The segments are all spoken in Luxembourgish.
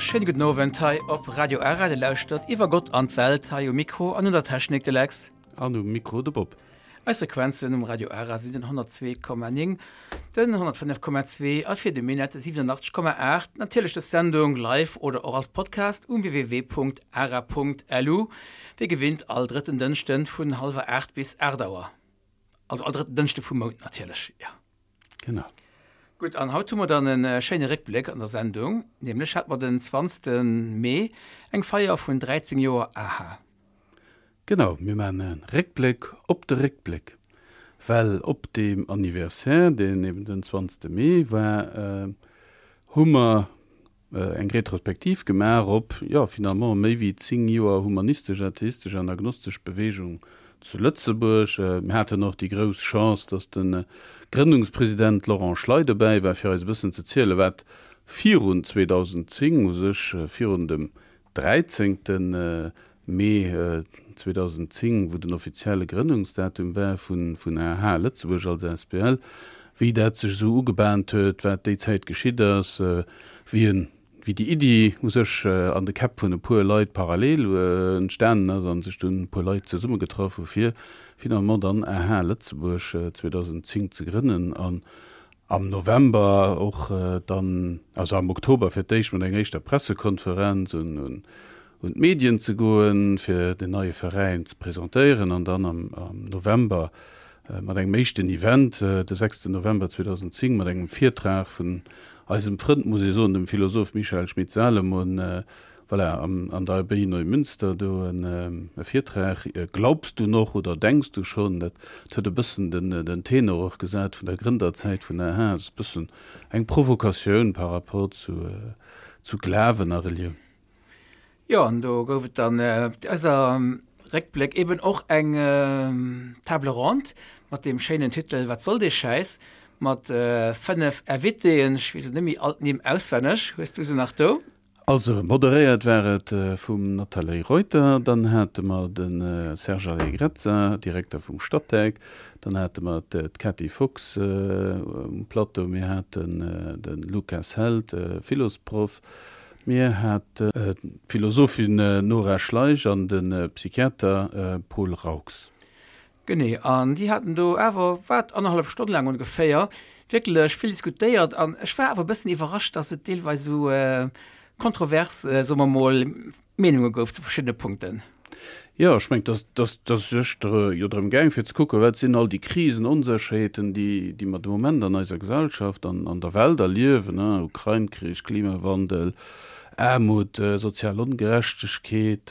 schéine gudden Owend hei op Radio Ara. Dir lauschtert Iwwer Gott an d'Welt, hei um Mikro an un der Technik de Lex. An um Mikro de Bob. Eis Frequenzen um Radio Ara sinn den 102,9, den 105,2 a fir de Minett 87,8. Natierlech dës Sendung live oder och als Podcast um www.ara.lu, wéi gewinnt all drëtten Dënschden vun hallwer 8 bis 8 Auer. Also all drëtten Dënschde vum Mount natierlech, jo. Genau. Gutt, an haut hu mer dann e schéine Réckbléck an der Sendung, nämlech hat mer den 20. Mee eng Feier vun 13 Joer aha. Genau, mir maachen e Réckbléck op de Réckbléck, well op deem Anniversaire, deen eben den 20. Mee war, hu mer eng Retrospektiv gemaach op, jo, finalement méi wéi 10 Joer humanistesch, atheistesch an agnostesch Bewegung zu Lëtzebuerg. Mir haten och déi grouss Chance, dass de Grënnungspresident Laurent Schley dobäi war, fir eis e bëssen ze zielen, wat virun 2010, u sech virun dem 13. Mee 2010, wou den offizielle Grënnungsdatum war vun AH Lëtzebuerg als asbl, wéi dat sech esou ugebahnt huet, wat déi Zäit geschitt ass, wéi en, wéi déi Iddi u sech an de Käpp vun e puer Leit parallel entstanen ass a sech dunn e puer Leit zesummegetraff hu fir finalement dann AH Lëtzebuerg 2010 ze grënnen an am November och dann, also am Oktober fir d'éischt mat enger éischter Pressekonferenz un un d'Medien ze goen, fir den neie Veräin ze presentéieren an dann am November mat engem éischten Event, de sechsten November 2010, mat engem Virtrag vun eisem Frënd, muss ee soen, dem Philosoph Michael Schmidt-Salomon, voilà, an der Abbaye Neumünster do e Virtrag, Glaubst du noch oder denkst du schon? Dat huet e bëssen den Tenor och gesat vun der Grënderzäit vun aha, ass e bëssen eng Provokatioun par rapport zu Glawen a Relioun. Jo, an do gouf et dann op eiser Réckbléck eben och eng Table ronde mat deem schéinen Titel Wat soll dee Schäiss? mat 5 Invitéen. Ech weess elo net méi all d'Nimm auswenneg. Hues du se nach do? Also moderéiert war et vum Nathalie Reuter, dann hate mer de Serge Allegrezza, Direkter vum Statec, dann hate mer d'Cathy Fox um Plateau, mir haten de Lukas Held, Philosproff, Mir haten d'Philosophin Nora Schleich an de Psychiater Paul Raux. Genee, an déi haten do awer, wat, annerhallef Stonn laang ongeféier wierklech vill diskutéiert. An ech war awer e bëssen iwwerrascht, dass et deelweis esou kontrovers, soe mer mol, Meenunge gouf zu verschiddene Punkten. Jo, ech mengen, dass, dass, dass sech jo drëm gaang, fir ze kucken, wat sinn all déi Krisen, Onsécherheeten, déi, déi mer de Moment an eiser Gesellschaft, an, an der Welt erliewen, Ukrain-Krich, Klimawandel, Aarmut, sozial Ongerechtegkeet,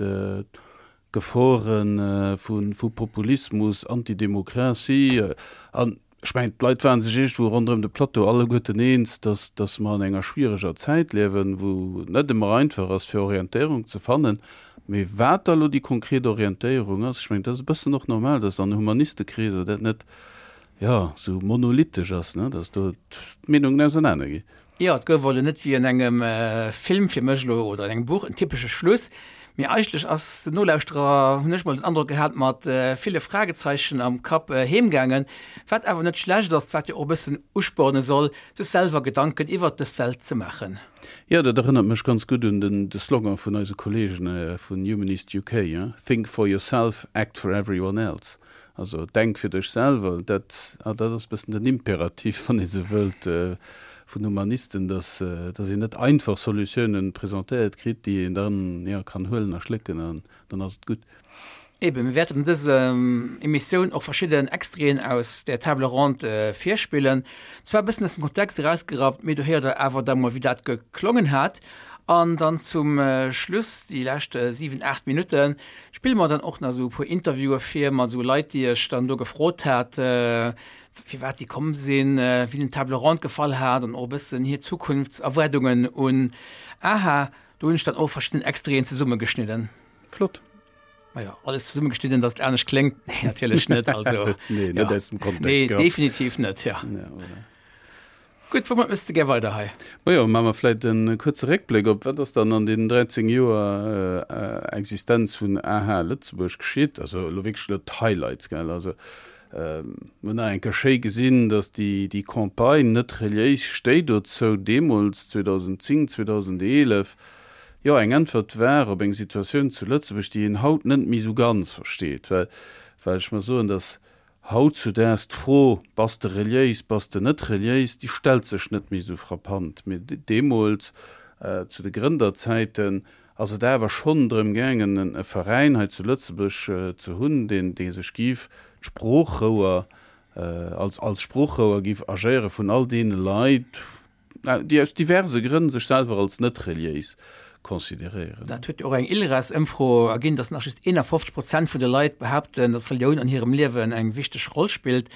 Gefore vu, vu Populismus, Antidemokratie. An Ech mengen, d'Leit ware sech iergendwou ronderëm de Plateau alleguerten eens, dass, dass mer an enger schwiereger Zäit liewen, wou et net ëmmer einfach ass, fir Orientéierung ze fannen. Mee wat da elo déi konkret Orientéierung ass, ech mengen, dat ass e bëssen och normal, dass an Humanistekreeser dat net, jo, esou monolithisch ass, ne, dass do d'Meenungen ausernanerginn. Jo, et gouf elo net wéi an engem Film fir mech elo oder an engem Buch en typesche Schluss, mee eigentlech ass den Nolauschterer, hunn ech mol den Androck gehat, mat ville Fragezeichen am Kapp heemgaangen, wat awer net schlecht ass, wat jo och e bëssen usporne soll, sech selwer Gedanken iwwert dës Welt ze maachen. Jo, dat erënnert mech ganz gutt un den de Slogan vun eise Kollegen vun Humanist UK, Think for yourself, act for everyone else. Also denk fir dech selwer, dat, ah, dat ass e bëssen den Imperativ, wann ee sou wëllt, vun Humanisten, dass, dass een net einfach Solutiounen presentéiert kritt, déi een dann, jo, kann huelen a schlécken an dann ass et gutt. Eben, mir wäerten an dëser Emissioun och verschidden Extraiten aus där Table ronde virspillen. Zwar e bëssen aus dem Kontext erausgerappt, mee do héiert der awer da mol, wéi dat geklongen hat. An dann zum Schluss, déi lescht 7, 8 Minutten, Spille mer dann och nach esou e puer Interviewe vir mat esou Leit, déi ech dann do gefrot hat, firwat si komm sinn, wéi hinnen d'Table ronde gefall hat an och e bëssen hir Zukunftserwaardungen un aha. Do hunn ech dann och verschidden Extraiten zesummegeschnidden. Flott. Majo, alles zesummegeschnidden, datt et anescht kléngt? Nee, natierlech net. Also, nee, net aus dem Kontext. Nee, definitiv net, ja. Ja, voilà. Gutt, woumat mëss de gär weider hei? Majo, maache mer vläit e kuerze Réckbléck op, wat ass dann an deenen 13 Joer Existenz vun aha Lëtzebuerg geschitt? Also elo wierklech elo d'Highlights, gell? Also mir hunn nach eng Kéier schéi gesinn, datt déi, déi Campagne net reliéis stéit dozou deemools 2010, 2011. jo, eng Äntwert war op eng Situatioun zu Lëtzebuerg, déi een haut net méi esou ganz versteet, well, well ech mer soen, dass hautzudaags d'Fro, Bass de reliéis, bass de net reliéis, déi stellt sech net méi esou frappant. Mee deemools, zu de Grënderzäiten, ass et awer schonn drëm gaangen, e Veräin hei zu Lëtzebuerg ze hunn, deen, dee sech géif d'Sproochrouer, als, als Sproochrouer géif agéiere vun all deene Leit, déi aus diverse Grënn sech selwer als net reliéis consideréieren. Dat huet jo och eng ILRAS-Ëmfro erginn, datt nach just 51 Prozent vun de Leit behaapten, datt Relioun an hirem Liewen eng wichteg Roll spillt,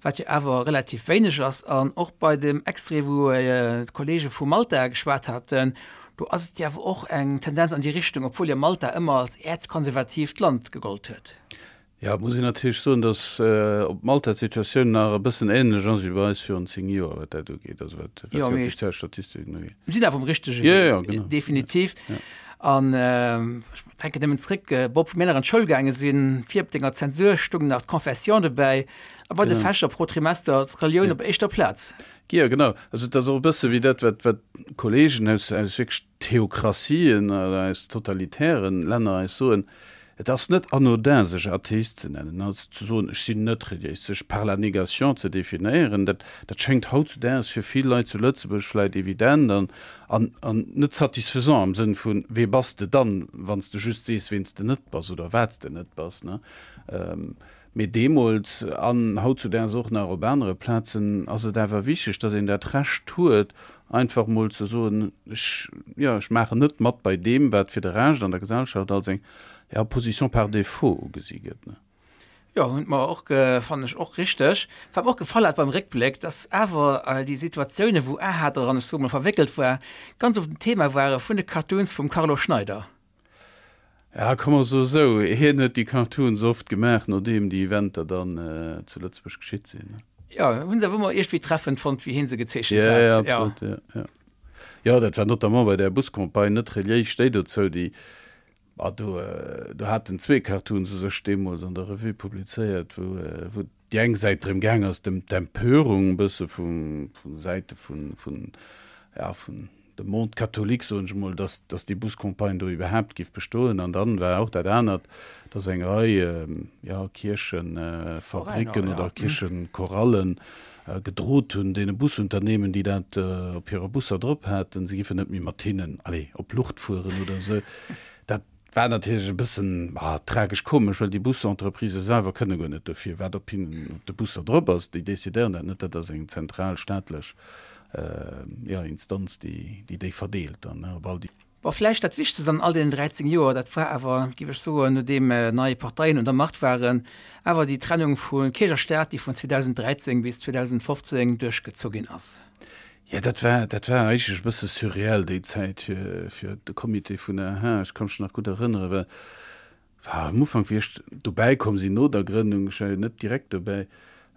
wat jo awer relativ wéineg ass. An och bei dem Extrait, wou d'Kolleege vu Malta geschwat haten, do ass et jo awer och eng Tendenz an déi Richtung, obwuel jo Malta ëmmer als äerzkonservatiivt Land gegollt huet. Jo, et muss een natierlech soen, datt op Malta d'Situatioun nach e bëssen änlech ass wéi bei eis virun 10 Joer, wat dat ugeet, also wat déi offiziell Statistiken ugeet. Mir sinn awer um richtege Wee, definitiv. An ech denken nëmmen zréck, Bob, wou mir nach an d'Schoul gaange sinn, vir op denger Zensur stoung nach d'Confession dobäi a bei de Fächer pro Trimester d'Relioun op éischter Plaz. Jo, genau. Also et ass och e bësse wéi dat, wat d'Kollegen aus wierklech Theokratien oder aus totalitären Länner eis soen, et ass net anodin sech Atheist ze nennen, also ze soen ech sinn net reliéis, sech par la négation ze definéieren, dat dat schéngt hautzudaags fir vill Leit zu Lëtzebuerg vläit evident an an an net satisfaisant am Sënn vun wee bass de dann, wann s de just sees ween s de net bass oder wat s de net bass, ne? Mee deemools, an hautzudaags och nach op anere Plazen, ass et awer wichteg, dass een dat Recht huet, einfach mol ze soen, ech, jo, ech maachen net mat bei deem, wat fir de Rescht an der Gesellschaft als eng, ja, Position par défaut ugesi gëtt. Jo, hunn mer och, fannen ech och richteg. Wat mer och gefall hat beim Réckbléck, dass awer déi Situatiounen, wou aha dran, ech soe mol, verwéckelt war, ganz oft en Thema ware vun de Cartoons vum Carlo Schneider. Ja, komm mer soe sou, hien huet déi Cartoons oft gemaach, nodeem déi Eventer dann zu Lëtzebuerg geschitt sinn. Jo, hunn se awer ëmmer iergendwéi treffend fonnt, wéi hie se gezeechent hat. Ja, ja, absolut, ja, ja. Jo, dat war notamment bei där Buscampagne net reliéis stéi dozou, déi, ah, do, do haten zwee Cartoons u sech deemools an der Revue publizéiert, wou, wou déi eng Säit drëm gaang ass, dem d'Empörung e bësse vu vu Säite vun vun ja vun dem Monde catholique, soen ech emol, dass dass déi Buscampagne do iwwerhaapt géif bestoen. An dann war och dat anert, dass eng Rei ja Kierchefabricken oder Kierchechorallen gedrot hunn deene Busunternehmen, déi dat op hire Busser drop haten, se giffen net méi mat hinnen, allez, op Lucht fueren oder esou. Dat War natierlech e bëssen tragesch-komesch, well déi Busentreprisen selwer kënne guer net dofir, wat op hinnen, op de Busser drop ass. Déi decidéieren dat net, dat ass eng zentral staatlech, jo, Instanz, déi déi verdeelt dann op all déi. Bon, vläicht dat Wichtegst an all deenen 13 Joer, dat war awer, géif ech soen, nodeem nei Parteien un der Macht waren, awer déi Trennung vu Kierch a Staat, déi vun 2013 bis 2015 duerchgezu ginn ass. Jo, dat war, dat war eigentlech e bësse surreal déi Zäit fir, fir de Comité vun der AHA. Ech ka mech nach gutt erënneren, well war am Ufank, wéi ech dobäi komm sinn, no der Grënnung, ech war jo net direkt dobäi,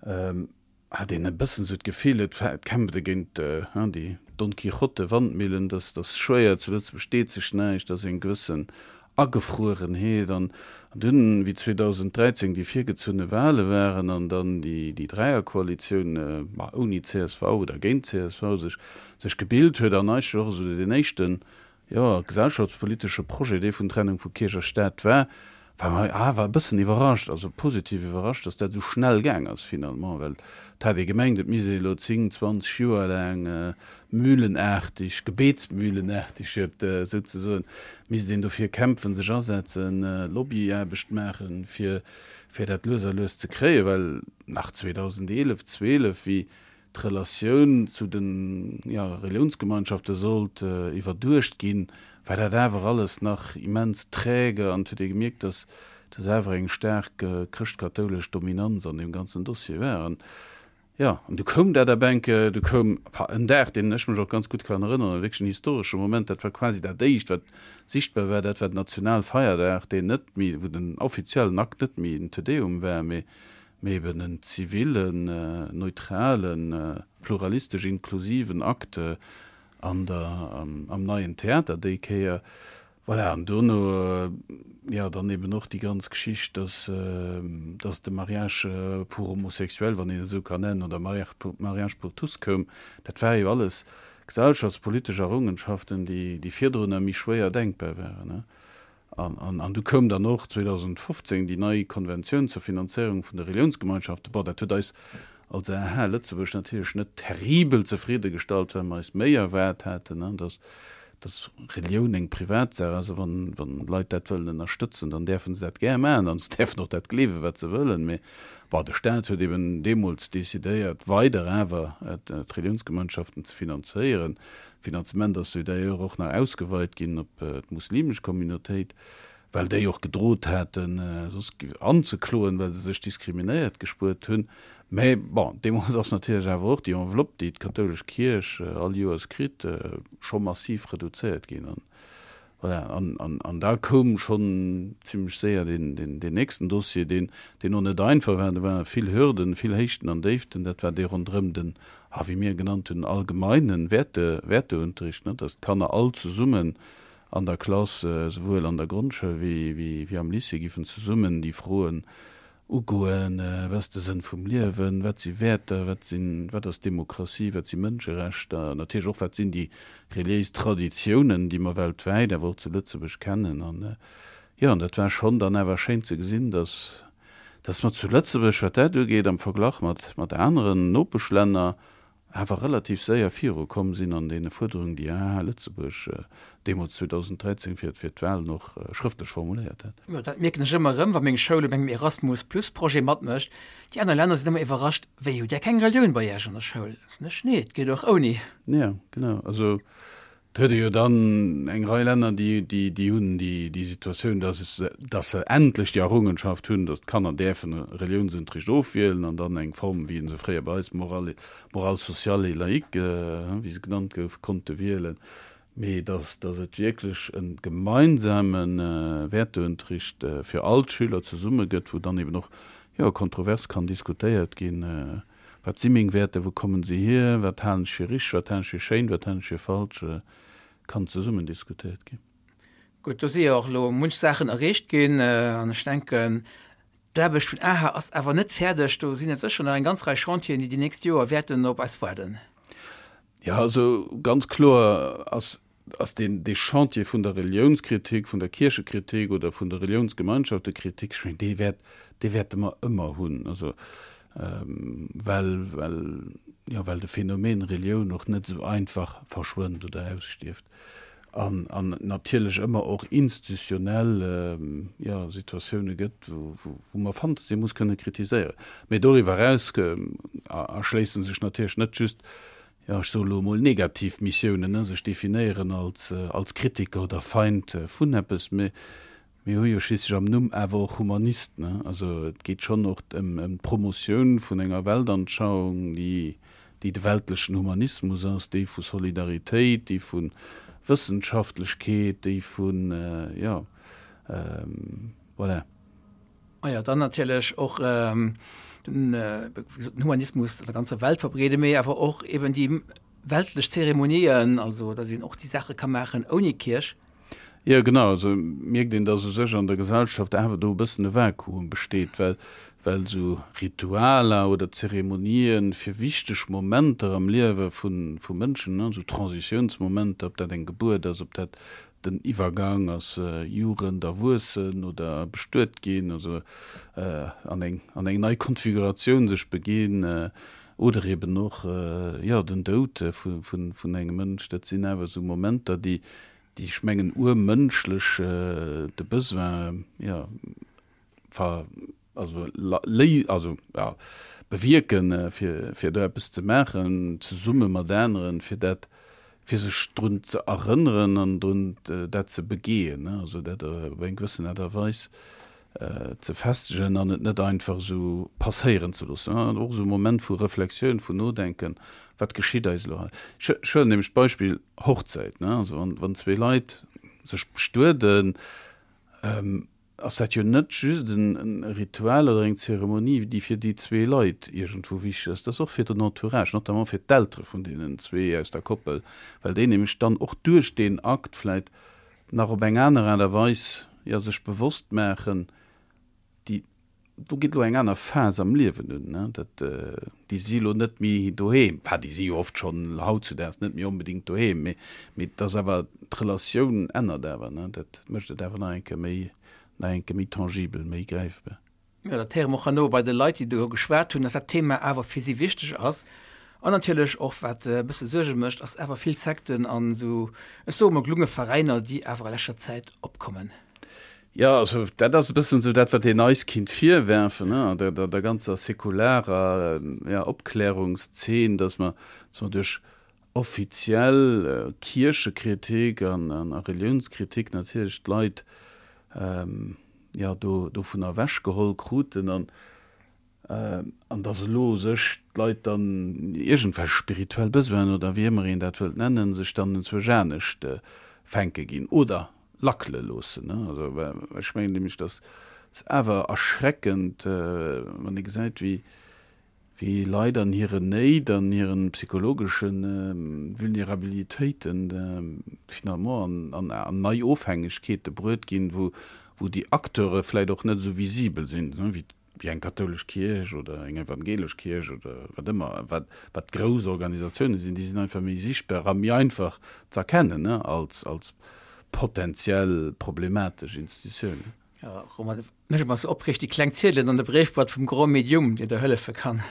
hat een e bëssen esou d'Gefill, et war, et kämpft ee géint déi Don Quijote-Wandmillen, dass, dass schwéier zu Lëtzebuerg deet sech näischt, dass eng gewëssen Agefruerenheet. An dunn, wéi 2013 déi virgezunne Wahle waren an dann déi Dräierkoalitioun, ma ouni csv oder géint csv, sech sech gebilt huet an eigentlech och esou deen éischten, jo, gesellschaftspolitesche Projet, dee vun Trennung vu Kierch a Staat war, war mer awer e bëssen iwwerrascht, also positiv iwwerrascht, datt dat esou schnell gaang ass finalement, well et hat ee gemengt, et misst ee elo 10, 20 Joer laang mühlenaartig, gebetsmühlenaartig huet souzesoen, misst een dofir kämpfen, sech asetzen, Lobbyaarbecht maachen, fir, fir dat lues a lues ze kréien, well nach 2011, 12, wéi d'Relatioun zu den, jo, Reliounsgemeinschafte sollt iwwerduecht ginn, war dat awer alles nach immens träge an et huet ee gemierkt, dass, dass awer eng staark chrëschtkatoulesch Dominanz an deem ganzen Dossier war. An Jo, an du koum dat ab enke, du koum en Dag, deen ech mech och ganz gutt kann erënneren, wierklech en historesche Moment, dat war quasi dat éischt, wat sichtbar war, dat war den Nationalfeierdag, deen net méi, wou den offiziellen Akt net méi en Te Deum war, mee mee eben en zivilen, neutralen, pluralistesch inklusiven Akt an der, am Neien Theater déi Kéier. Voilà, an dono, jo, dann eben och déi ganz Geschicht, dass, dass de Mariage pour homosexuels, wann een et esou kann nennen, oder Mariage pour, Mariage pour tous koum. Dat war jo alles. gesellschaftspolitesch Errungenschaften, déi, déi virdrunner méi schwéier denkbar waren. An, an du koum dann och 2015 déi nei Konventioun zur Finanzéierung vun de Reliounsgemeinschaften. Bon, dat huet eis als AH Lëtzebuerg natierlech net terribel zefridde gestallt, well mer eis méi erwaart haten, dass, dass Relioun eng Privatsaach ass a wann, wann Leit dat wëllen ënnerstëtzen, dann däerfe se dat gär maachen an se däerfen och dat gleewen, wat se wëllen. Mee bon, de Staat huet eben deemools decidéiert, weider awer d'Reliounsgemeinschaften ze finanzéieren. D'Finanzement ass jo d'ailleurs och nach ausgeweit ginn op d'muslimesch Communautéit, well déi och gedrot haten, soss anzekloen, well se sech diskriminéiert gespuert hunn. Mä bon, deemools ass natierlech awer och déi Enveloppe, déi d'kathoulesch Kierch all Joers kritt, scho massiv reduzéiert ginn. An voilà, an da koum schonn zimlech séier deen nächsten Dossier, deen och net einfach war. Do ware vill Hürden, vill Héichten an Déiften. Dat war dee ronderëm den, ah, wéi mir e genannt hunn, allgemeinen Wäerte, Wäerteunterricht, ne, dass d'Kanner all zesummen an der Klass, esouwuel an der Grondschoul wéi am Lycée, giffen zesummen déi Froen ugoen, Wat ass de Sënn vum Liewen? Wat si Wäerter? Wat sinn, wat ass Demokratie? Wat si Mënscherechter? Natierlech och, wat sinn déi reliéis Traditiounen, déi mer weltwäit, awer och zu Lëtzebuerg kennen? An, jo, an dat war schonn dann awer schéin ze gesinn, dass, dass mer zu Lëtzebuerg, wat dat ugeet, am Verglach mat, mat aneren Nopeschlänner, awer relativ séier viru komm sinn an deene Fuerderungen, déi AH Lëtzebuerg deemools 2013 fir fir d'Wahlen och schrëftlech formuléiert hat. Jo, dat mierken ech ëmmer erëm, wa meng Schoul op engem Erasmus Plus Projet matmécht. Déi aner Länner sinn ëmmer iwwerrascht, Wéi, hutt Där keng Relioun bei Iech an der Schoul? Soen ech, Nee, et geet och ouni. Jo, genau. Also Et huet ee jo dann eng Rei Länner, déi, déi, déi hunn déi, déi Situatioun, dass se, dass se endlech déi Errungenschaft hunn, dass d'Kanner däerfen Reliounsunterricht ofwielen an dann eng Form, wéi se fréier bei eis morale, morale sociale et laïque, wéi se genannt gouf, konnte wielen. Mee dass, dass et wierklech e gemeinsame Wäerteunterricht fir all d'Schüler zesumme gëtt, wou dann eben och, jo, kontrovers kann diskutéiert ginn, Wat si meng Wäerter, wou kommen se hier, wat halen ech fir richteg, wat halen ech fir schéin, wat halen ech fir falsch, kann zesummen diskutéiert ginn. Gutt, do si jo och elo munch Saachen erreecht ginn an ech denken, d'Aarbecht vun aha ass awer net fäerdeg. Do sinn et sécher nach eng ganz Rei Chantieren, déi déi nächst Joer wäerten op eis waarden. Jo, also ganz kloer ass ass deen, dee Chantier vun der Reliounskritik, vun der Kierchekritik oder vun der Reliounsgemeinschaftekritik, ech mengen, dee wäert, dee wäerte mer ëmmer hunn. Also, well, well, jo, well de Phänomen Relioun och net esou einfach verschwënnt oder ausstierft. An, an et natierlech ëmmer och institutionell, jo, Situatioune gëtt, wou, wou, wou mer Fantasie muss kënne kritiséieren. Mee doriwwer eraus erschléisse sech natierlech net just jo, ech soe lo emol negativ Missiounen, ne, sech definéieren als, als Kritiker oder Feind vun eppes, mee mir hu jo schliisslech am Numm awer och Humanist, ne. Also et geet schonn och ëm, ëm d'Promotioun vun enger Weltanschauung, déi, déi de weltlechen Humanismus ass, déi vu Solidaritéit, déi vu Wëssenschaftlechkeet, déi vun, jo, voilà. Ah jo, dann natierlech och den Humanismus an der ganzer Welt verbreeden, mee awer och eben déi weltlech Zeremonien, also datt een och déi Saache ka maachen ouni Kierch. Jo, genau. Also mierkt een, datt u sech an der Gesellschaft awer do e bëssen e Vakuum besteet, well, well esou Ritualer oder Zeremonien fir wichteg Momenter am Liewe vu Mënschen, esou Transitiounsmomenter, ob dat eng Gebuert ass, ob dat Den Iwwergang ass Jugend, Erwuessen oder bestuet ginn, also an eng an eng nei Konfiguratioun sech beginn, oder eben och jo den Doud vu vun vun engem Mënsch. Dat sinn awer esou Momenter, déi déi ech mengen urmënschlech de Besoin jo ver also léi also ja bewierken, fir fir do eppes ze maachen zesumme mat aneren, fir dat fir sech drun ze erënneren an drun dat ze begehen, also dat op eng gewëssen Aart a Weis ze festegen an et net einfach esou passéieren ze loossen. Och esou e Moment vu Reflexioun, vun Nodenken, wat geschitt eis elo hei? Ech huelen nämlech d'Beispill Hochzäit, also wann zwee Leit sech bestueden, ass dat jo net just en Ritual oder eng Zeremonie, déi fir déi zwee Leit iergendwou wichteg ass, dat ass och fir den Entourage, notamment fir d'Eltere vun deenen zwee aus der Koppel, well déi nämlech dann och duerch deen Akt vläicht nach op eng aner Aart a Weis, jo, sech bewosst maachen, déi. Do geet elo eng aner Phas am Liewen un, ne? Dat, déi si elo net méi doheem, enfin déi si jo oft schonn hautzudaags net méi onbedéngt doheem, mee, mee et ass awer, d'Relatioun ännert awer, ne? Dat mécht et awer nach eng Kéier méi, nach eng Kéier méi tangibel, méi gräifbar. Jo, dat héiere mer och herno bei de Leit, déi do geschwat hunn, dass dat Thema awer fir si wichteg ass. An natierlech och, wat e bësse Suerge mécht, ass awer vill Sekten an esou, ech soe mol gelunge Veräiner, déi awer a leschter Zäit opkommen. Jo, also dat ass e bëssen esou dat, wat een eis kinnt virwerfen, ne, der, der, der ganzer säkularer, ja, Opklärungszeen, dass mer, dass mer duerch offiziell Kierchekritik an, an a Reliounskritik natierlech d'Leit, ja, do, dovunner ewechgeholl kruten an, An dass elo sech d'Leit dann iergendwelch spirituell Besoinen oder wéi ëmmer een dat wëllt nennen, sech dann enzwousch anescht fänke ginn oder lackele loossen. Also ech mengen nämlech, dass es awer erschreckend, wann ee gesäit, wéi wéi Leit an hiren Néit, an hiren psychologesche Vulnerabilitéiten finalement an an nei Ofhängegkeete bruet ginn, wou wou déi Acteure vläicht och net esou visibel sinn, wéi wéi eng kathoulesch Kierch oder eng evangelesch Kierch oder wat ëmmer, wat, wat grouss Organisatiounen sinn, déi sinn einfach méi sichtbar a méi einfach ze erkennen, ne, als, als potenziell problematesch Institutiounen. Jo, Romain, mech ëmmer sou opreegt déi kleng Ziedelen an der Bréifboîte vum Grand Medium, deen der hëllefe kann.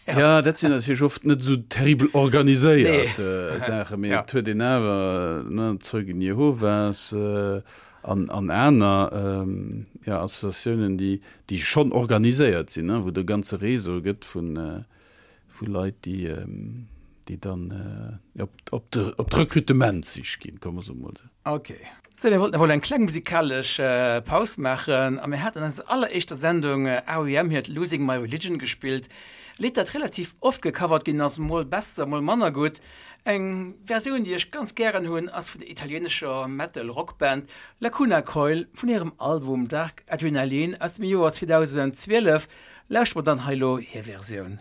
Ja, dat sinn natierlech oft net esou terribel organiséiert Saachen, mee et huet een awer, ne, Zeugen Jehovas an, an aner, ja, Associatiounen, déi, déi schonn organiséiert sinn, ne, wou et e ganze Réseau gëtt vun, vu Leit, déi, déi dann op, op de, op d'Rekrutementssich ginn, komme mer emol esou. Ok. Sou, mir wollten emol eng kleng musikalesch Paus maachen a mir haten an eiser alleréischter Sendung REM hiert Losing My Religion gespillt. E Lidd, dat relativ oft gecovert ginn ass, mol besser, mol manner gutt. Eng Versioun, déi ech ganz gären hunn, ass vun der italieenescher Metal-Rock-Band Lacuna Coil vun hirem Album Dark Adrenaline aus dem Joer 2012. Lauschtert mer dann hei elo hir Versioun.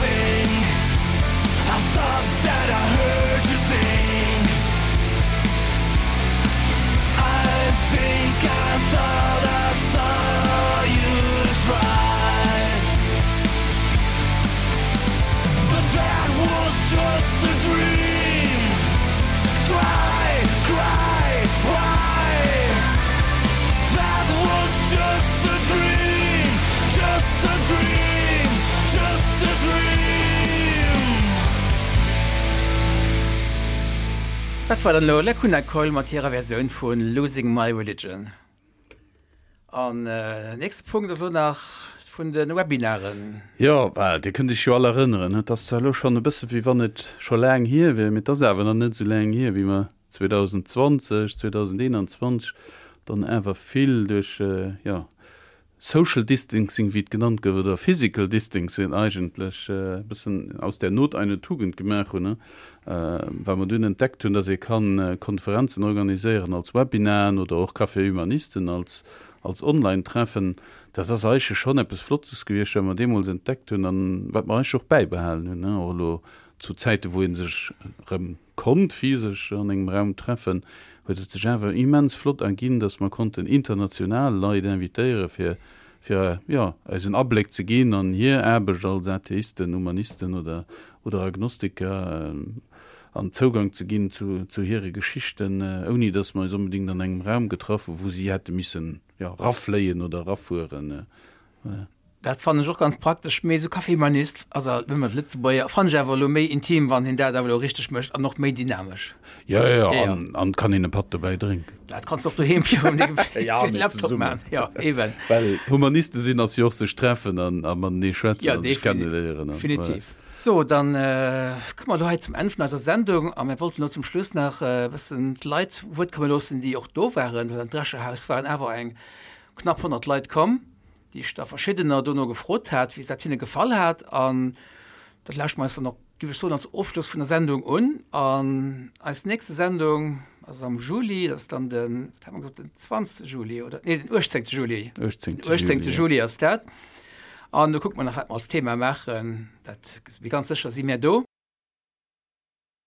think I thought that I heard you sing. I think I thought I saw you try. But that was just a dream. Cry, cry, why? That was just a dream, just a dream, just a dream. Dat war dann elo Lacuna Coil mat hirer Versioun vu Losing My Religion. An nächste Punkt ass elo nach vun de Webinaren. Jo, well Dir kënnt Iech jo all erënneren, et ass zwar elo schonn e bësse wéi wann et scho laang hier wier, mee et ass awer nach net esou laang hier, wéi mer 2020, 2021 dann awer vill duerch, jo, Social Distancing, wéi et genannt gouf, oder Physical Distancing eigentlech, e bëssen aus der Not eine Tugend gemaach hunn, well mer dunn entdeckt hunn, dass ee kann Konferenzen organiséieren als Webinaren oder och Café Humanisten als als Online-Treffen. Dat ass eigentlech schonn eppes Flottes gewiescht, wat mer deemools entdeckt hunn an wat mer eigentlech och bäibehalen hunn, och elo zu Zäite wou ee sech erëm konnt physesch an engem Raum treffen, huet et sech awer immens flott erginn, dass mer konnten international Leit invitéiere fir fir, jo, eis en Abléck ze ginn an hir Aarbecht als Atheisten, Humanisten oder oder Agnostiker an Zougang ze ginn zu zu hire Geschichten, ouni dass mer eis onbedéngt an engem Raum getraff hu wou si hätte missen, jo, rafléien oder erafueren. Dat fannen ech och ganz praktesch, mee esou Café Humanist ass alt nëmmen Lëtzebuerger, fannen ech awer elo méi intim, wann hien dat awer elo richteg mécht an och méi dynamesch. Jo, jo, an an kann een e Patt dobäi drénken. Dat kanns de och doheem virum dengem Laptop maachen. Jo, eben. Well Humaniste sinn ass jo och sech treffen an a matenee schwätzen a sech kenneléieren. Definitiv. So, dann komme mer elo hei zum Enn vun eiser Sendung a mir wollten elo zum Schluss nach e bëssen d'Leit zu Wuert komme loossen, déi och do waren, well an d'Drescherhaus waren awer eng knapp 100 Leit komm. déi ech da verschiddener dono gefrot hat, wéi dat hinne gefall hat. An dat lauschte mer eis dann och, géif ech soen, als Ofschloss vun der Sendung un. An eis nächste Sendung ass am Juli, dat ass dann den, wat hat mer gesot, den 20. Juli oder, nee, den 18. Juli. 18. Den 18. Juli ass dat. An do kucke mer nach, wat mer als Thema maachen. Dat, mee ganz sécher si mär do.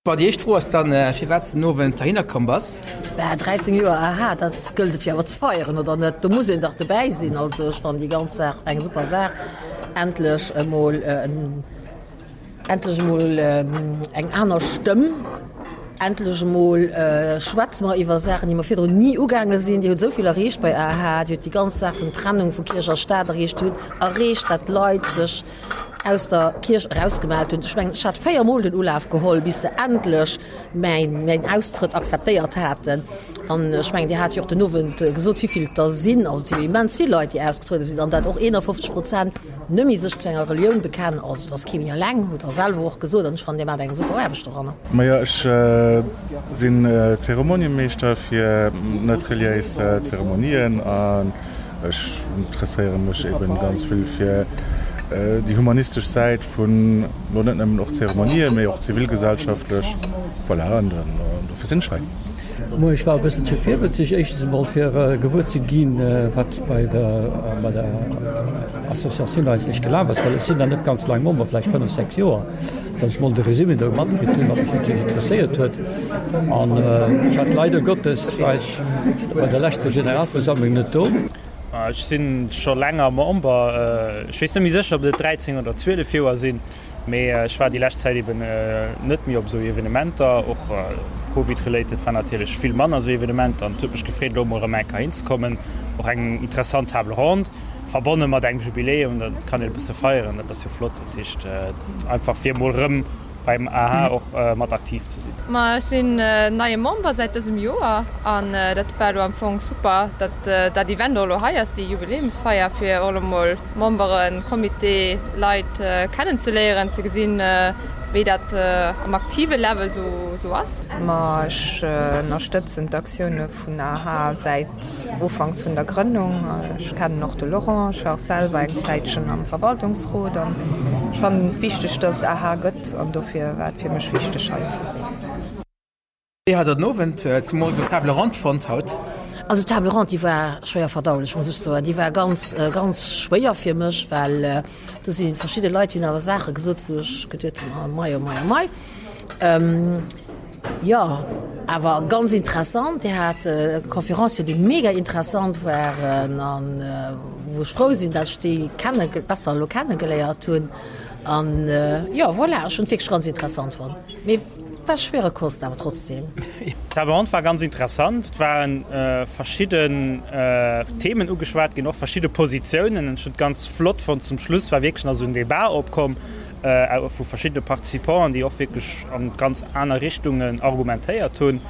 Bon, déi éischt Fro ass dann, firwat s de den Owend heihinner komm bass. Bah, 13 Joer, aha, dat gëllt et jo awer ze feieren, oder net? Do muss een dach dobäi sinn. Also ech fannen déi ganz Saach eng super Saach. Endlech emol, endlech emol eng aner Stëmm. Endlech emol schwätze mer iwwer Saachen, déi mer virdrun ni ugaange sinn. Dir hutt esou vill erreecht bei aha. Dir hutt déi ganz Saach vun Trennung vu Kierch a Staat erreecht. Dir hutt erreecht, dat d'Leit sech aus der Kierch erausgemellt hunn. Ech mengen, ech hat 4 Mol den Ulaf geholl, bis se endlech mäin, mäin Austrëtt akzeptéiert haten. An ech mengen, Dir hat jo och den Owend gesot, wéivill et der sinn. Also et si jo immens vill Leit, déi ausgetruede sinn, an dat och 51 Prozent nëmme sech zu enger Relioun bekennen. Also et ass kee méi eleng, hutt Der selwer och gesot. An ech fannen, Dir maacht eng super Aarbecht doranner. Majo, ech sinn Zeremoniemeeschter fir net reliéis Zeremonien an Ech interesséiere mech eben ganz vill fir déi humanistesch Säit vun lo net nëmmen och Zeremonien, mee och zivilgesellschaftlech. Voilà, an dofir sinn ech hei. Moien, ech war e bësselche virwëtzeg, éischtens emol fir gewuer ze ginn, wat bei der bei der Associatioun eigentlech gelaf ass, well ech sinn nach net ganz laang Member, vläicht 5, 6 Joer, datt ech mol de Résumé do matkritt hunn, wat mech natierlech interesséiert huet. An ech hat leider Gottes, war ech Bei der leschter Generalversammlung net do. Ech sinn scho länger Member. Ech weess net méi sécher, ob et 13 oder 12 Joer sinn, mee ech war déi lescht Zäit eben net méi op esou Evenementer. Och Covid-related war natierlech vill manner esou Evenementer an et huet mech gefreet, elo emol erëm eng Kéier hinzekommen. Och eng interessant Table ronde, verbonne mat engem Jubiläum, dat kann een e bësse feieren, dat ass jo flott. Dat heescht einfach fir emol erëm beim aha och mat aktiv ze sinn. Ma ech sinn neie Member säit dësem Joer an dat war elo am Fong super, datt dat Event och elo hei ass, déi Jubiläumsfeier, fir och elo mol Memberen, Comité, Leit kennen ze léieren, ze gesinn, wéi dat am aktive Level sou ass. Ma ech ënnerstëtzen d'Aktioune vun aha säit Ufanks vun der Grënnung. Ech kennen och de Laurent, ech war och selwer eng Zäitchen am Verwaltungsrot an ech fannen et wichteg, dass et aha gëtt an dofir war et fir mech wichteg hei ze sinn. Wéi hat der den Owend, zemools op Table Ronde fonnt haut? Also d'Table ronde, déi war schwéier verdaulech, muss ech soen. Déi war ganz, ganz schwéier fir mech, well do si verschidde Leit, déi hunn awer Saache gesot, wou ech geduet hunn, oh mei, oh mei, oh mei. Jo, awer ganz interessant. Dir hat Conférencier, déi mega interessant waren an wou ech frou sinn, dat ech déi kenne besser elo kennegeléiert hunn. An jo, voilà, ech hunn et wierklech ganz interessant fonnt. Mee war schwere Kost awer trotzdem. D'Table ronde war ganz interessant. Et ware verschidden Themen ugeschwat ginn, och verschidde Positiounen. Ech hunn et ganz flott fonnt, zum Schluss war wierklech nach esou en Debat opkomm vu verschiddene Participanten, déi och wierklech an ganz aner Richtungen argumentéiert hunn.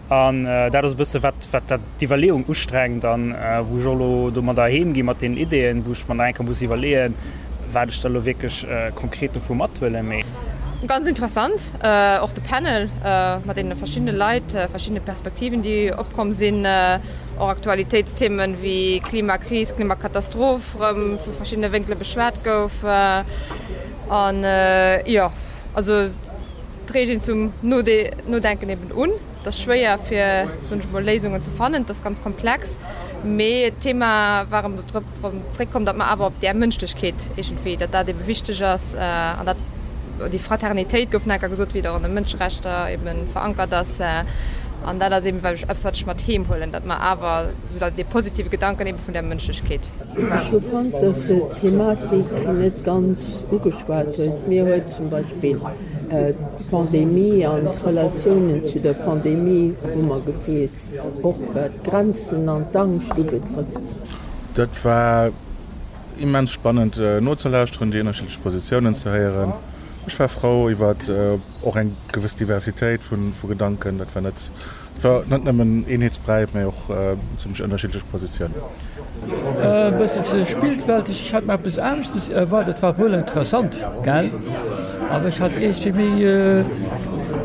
An dat ass e bësse wat, wat dat d'Iwwerleeung ustrengt an wou ech och elo domadder heem gi mat deenen Ideeën, wou ech mer nach eng Kéier muss iwwerleeën, wat ech da elo wierklech konkret dovu mathuelen. Mee. Ganz interessant, och de Panel mat deene verschiddene Leit, verschiddene Perspektiven, déi opkomm sinn, och Aktualitéitsthemen wéi Klimakris, Klimakatastroph erëm vu verschiddene Wénkele beschwat gouf. An jo, also et reegt een zum Nodenken eben un. Et ass schwéier fir, soen ech emol, Léisungen ze fannen, et ass ganz komplex, mee d'Thema war erëm drop zréckkomm, datt mer awer op där Mënschlechkeet iergendwéi, datt dat ebe wichteg ass an dat déi Fraternitéit gouf nach eng Kéier gesot, wéi et och an de Mënscherechter ebe verankert ass. An dat ass eben eppes, wat ech mat heem huelen, datt mer awer esou dee positive Gedanken ebe vun där Mënschlechkeet. Ech hu fonnt, datt se d'Thematik net ganz ugeschwat huet. Mir huet zum Beispill D'Pandemie an d'Relatiounen zu der Pandemie hu mer gefeelt, och wat d'Grenzen an d'Angscht ubetrëfft. Dat war immens spannend nozelauschteren, déi ënnerschiddlech Positiounen ze héieren. Ech war frou iwwer och eng gewëss Diversitéit vu Gedanken. Dat war net Et war net nëmmen Eenheetsbräi, mä och zimmlech ënnerschiddlech Positiounen. E bësselche spillwelteg, ech hat mer eppes aneschtes erwaart. Et war wuel interessant, gell, awer ech hat iergendwéi méi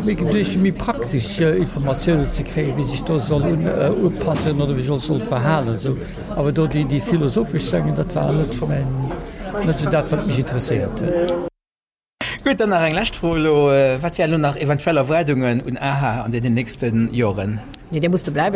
méi geduecht fir méi praktesch Informatiounen ze kréien, wéi sech do soll un upassen oder wéi sech soll verhalen esou. Awer do déi déi philosophesch Sengen, dat war net mäin, net esou dat wat mech interesséiert huet. Gutt, dann nach eng lescht Fro elo, Wat wären elo nach eventuell Erwaardungen un aha an deenen nächste Joren? Nee, Dir musst dobäi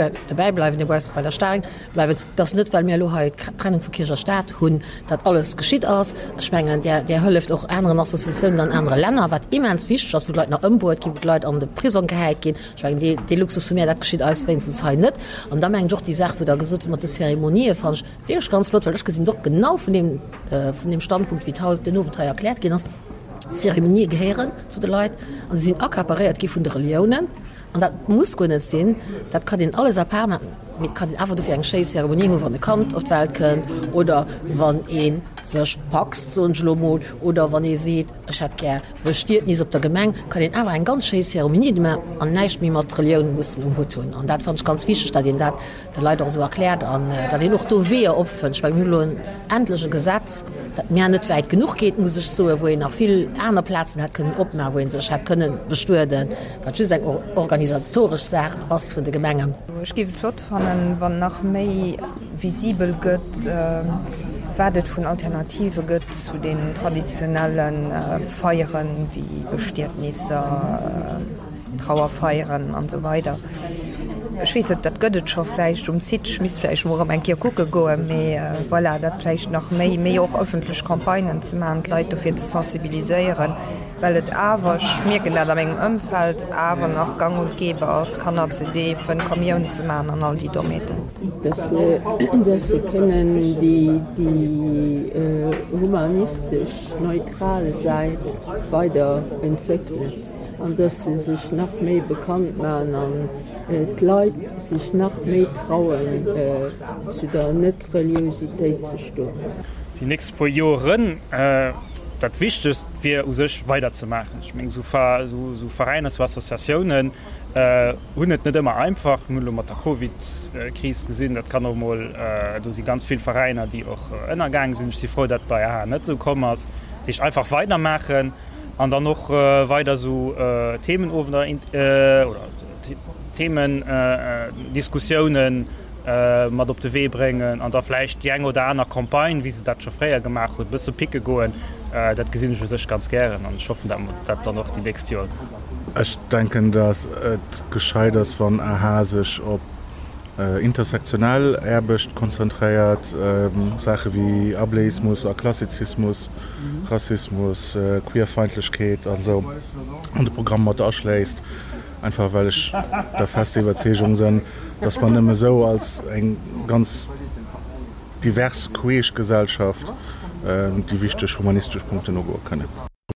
bleiwen, Dir musst bei der Staang bleiwen. Et ass net, well mir elo hei d'Trennung vu Kierch a Staat hunn, datt alles geschitt ass. Ech mengen, Där, Där hëlleft och aneren Associatiounen an anere Länner, wat immens wichteg ass, wou d'Leit nach ëmbruet ginn, wou d'Leit an de Prisong gehäit ginn. Ech mengen, dee, dee Luxus hu mir, dat geschitt eis wéinstens hei net. An da mengen ech och déi Saach, wou Der gesot hutt mat de Zeremonië, fannen ech wierklech ganz flott, well ech gesinn et och genau vun deem, vun deem Standpunkt, wéi et haut den Owend hei erkläert ginn ass, D'Zeremonië gehéieren zu de Leit an se sinn accaparéiert gi vun de Reliounen. An dat muss guer net sinn, dat kann een alles à part maachen, mee et kann een awer dofir eng schéi Zeremonie hunn, wann e Kand op d'Welt kënnt oder wann ee sech paxt, soen ech elo emol, oder wann ee seet, ech hätt gär Bestietnis op der Gemeng, kann een awer eng ganz schéi Zeremonie maachen an näischt méi mat Relioun mussen um Hutt hunn. An dat fannen ech ganz wichteg, datt een dat de Leit och esou erkläert an datt een och do Weeër opfënnt. Ech mengen, mir hunn elo endlech e Gesetz, dat mär net wäit genuch geet, muss ech soen, wou een nach vill aner Plazen hätt kënnen opmaachen, wou ee sech hätt kënnen bestueden, wat just eng organisatoresch Saach ass vun de Gemengen. Ech géif et flott fannen, wann nach méi visibel gëtt, wat et vun Alternative gëtt zu den traditionelle Feieren, wéi Bestietnisser, Trauerfeieren an esou weider. Ech weess net, dat gëtt et scho vläicht um Site, ech misst vläicht emol erëm eng Kéier kucke goen, mee voilà, dat vläicht nach méi, méi och ëffentlech Campagnen ze maachen, d'Leit dofir ze sensibiliséieren, well et awer, ech mierken dat a mengem Ëmfeld, awer nach gang und gäbe ass, Kanner ze deefen, Kommioun ze maachen an all déi Dommheeten. Dass se kënnen déi humanistesch, neutral Säit weider entwéckelen. an dass se sech nach méi bekannt maachen an d'Leit sech nach méi trauen zu der Net-Reliousitéit ze stoen. Déi nächst puer Joeren, dat Wichtegst wier u sech weiderzemaachen. Ech mengen, esou Veräiner, esou Associatiounen hunn et net ëmmer einfach. Mir hunn elo mat der Covid-Kris gesinn, dat kann och emol, do si ganz vill Veräiner, déi och ënnergaange sinn. Ech si frou, datt bei aha net esou komm ass. Dat heescht, einfach weidermaachen. An dann och weider esou Themenowender oder Themendiskussiounen mat op de Wee bréngen an da vläicht déi eng oder aner Campagne, wéi se dat scho fréier gemaach hunn, e bësse picke goen. Dat gesinn ech u sech ganz gären an ech hoffen, dat mer dat dann och déi nächst Joer. Ech denken, datt et gescheit ass, wann aha sech op. Intersektionell Aarbecht konzentréiert, Saache wéi Ableismus a Klassizismus, Rassismus, Queerfeindlechkeet an esou an de Programm mat aschléisst, einfach well ech der fester Iwwerzeegung sënn, dass mer nëmme esou als eng ganz divers queesch Gesellschaft déi wichteg humanistesch Punkten ugoe kënnen.